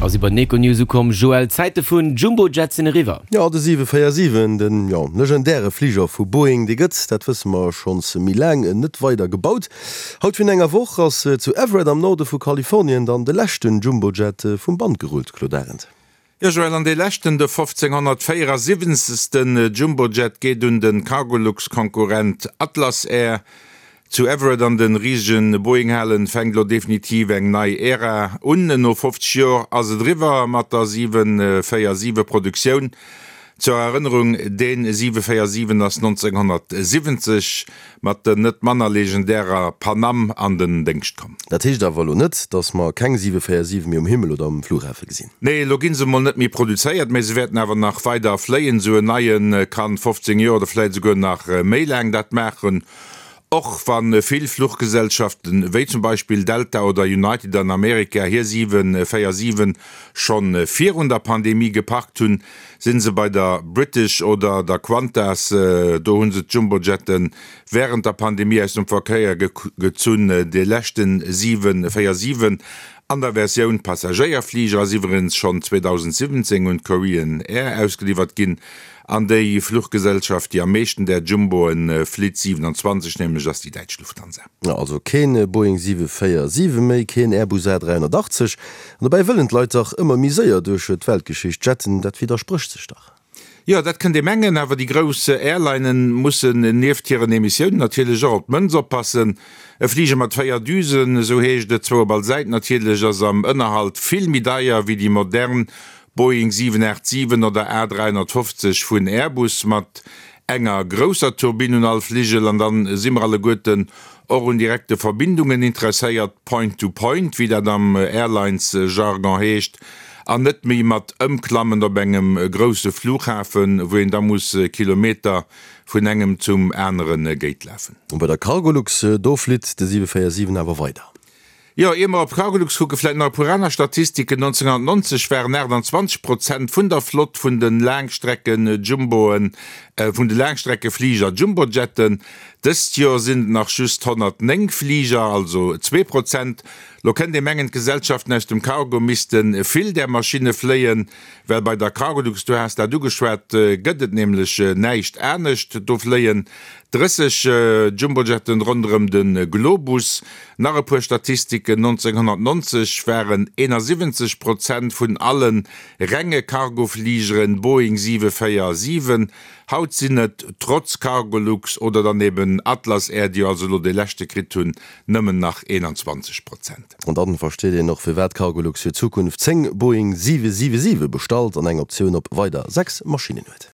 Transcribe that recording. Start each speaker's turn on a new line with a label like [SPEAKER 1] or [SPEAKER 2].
[SPEAKER 1] A si bei den Econews ukomm. Joël, d'Zäite vun Jumbo-Jet sinn eriwwer.
[SPEAKER 2] Jo, de 747, den, jo, legendäre Fliger vu Boeing, dee gëtt, dat wësse mer schonns méi laang, net weider gebaut. Haut virun enger Woch ass zu Everett am Norde vu Kalifornien dann de leschten Jumbo-Jet vum Band gerullt, Claude Arend.
[SPEAKER 3] Jo Joël, an dee leschten, de 1574. Jumbojet geet un de Cargolux-Konkurrent Atlas Air. Zu Everett an de risegen Boeing-Halen fänkt elo definitiv eng nei Ära un. No 50 Joer ass et eriwwer mat der 747-Produktioun. Zur Erënnerung, Dee 747 ass 1970 mat der net manner legendärer Pan Am an den Déngscht komm.
[SPEAKER 2] Dat heescht awer elo net, datt mer keng 747 méi um Himmel oder um Flughafe gesinn.
[SPEAKER 3] Nee, elo gi se mol net méi produzéiert, mä se wäerten awer nach weider fléien. Esou en neie kann 15 Joer oder vläit esouguer nach méi laang dat maachen. Och wa vill Fluchgesellschaften, wéi zum Beispill Delta oder United an Amerika, hir 747 scho virun der Pandemie geparkt hunn, si se bei der British oder der Qantas, do hu se d'Jumbojette wärend der Pandemie aus dem Verkéier gezunn. De leschte 747 an der Versioun Passagéierfliger ass iwwerens schonn 2017 un d'Korean Air ausgeliwwert ginn. An déi Fluchgesellschaft, déi am meeschten där Jumboen flitt, 27 nämlech, ass déi däitsch Lufthansa.
[SPEAKER 2] Also keen Boeing 747 méi, keen Airbus A380. An dobäi wëllen d'Leit dach ëmmer méi séier duerch d'Weltgeschicht jetten. Dat widdersprécht sech dach.
[SPEAKER 3] Jo, dat kënnt ee mengen, awer déi grouss Airlinen mussen nieft hiren Emissiounen natierlech och op d'Mënz oppassen. E Fliger mat 4 Düsen, esou heescht et, zwou op all Säit natierlech, ass am Ënnerhalt vill méi deier wéi déi modern Boeing 787 oder A350 vun Airbus mat enger grousser Turbinn un all Fligel. An dann si mer alleguerten och un direkte Verbindungen interesséiert, Point to Point, wéi dat am Airlines-Jargon heescht, an net méi mat Ëmklammen op engem grousse Flughafen, wou een da muss Kilometer vun engem zum anere Gate lafen.
[SPEAKER 2] Bei der Cargolux, do flitt de 747 awer weider.
[SPEAKER 3] Jo, ier mer op Cargolux kucken, vläit nach e puer aner Statistiken, 1990 waren 28 Prozent vun der Flott vun de Laangstrecken-Jumboen, vun de Laangstreckefliger Jumbojetten. Dëst Joer sinn et nach just 109 Fliger, also 2 Prozent. Lo kënnt ee mengen, d'Gesellschaften aus dem Cargo misste vill där Maschinne fléien, well bei der Cargolux, du has dat ugeschwat, gëtt et nämlech näischt anescht. Do fléien 30 Jumbojetten ronderëm de Globus. Nach e puer Statistiken, 1990 waren 71 Prozent vun alle renge Cargofligeren Boeing 747, haut sinn et, trotz Cargolux oder dann eben Atlas Air, déi jo also elo dee leschte kritt hunn, nëmmen nach 21 Prozent.
[SPEAKER 2] An dann versteet een och firwat Cargolux fir d'Zukunft 10 Boeing 777 bestallt an eng Optioun op weider 6 Maschinnen huet.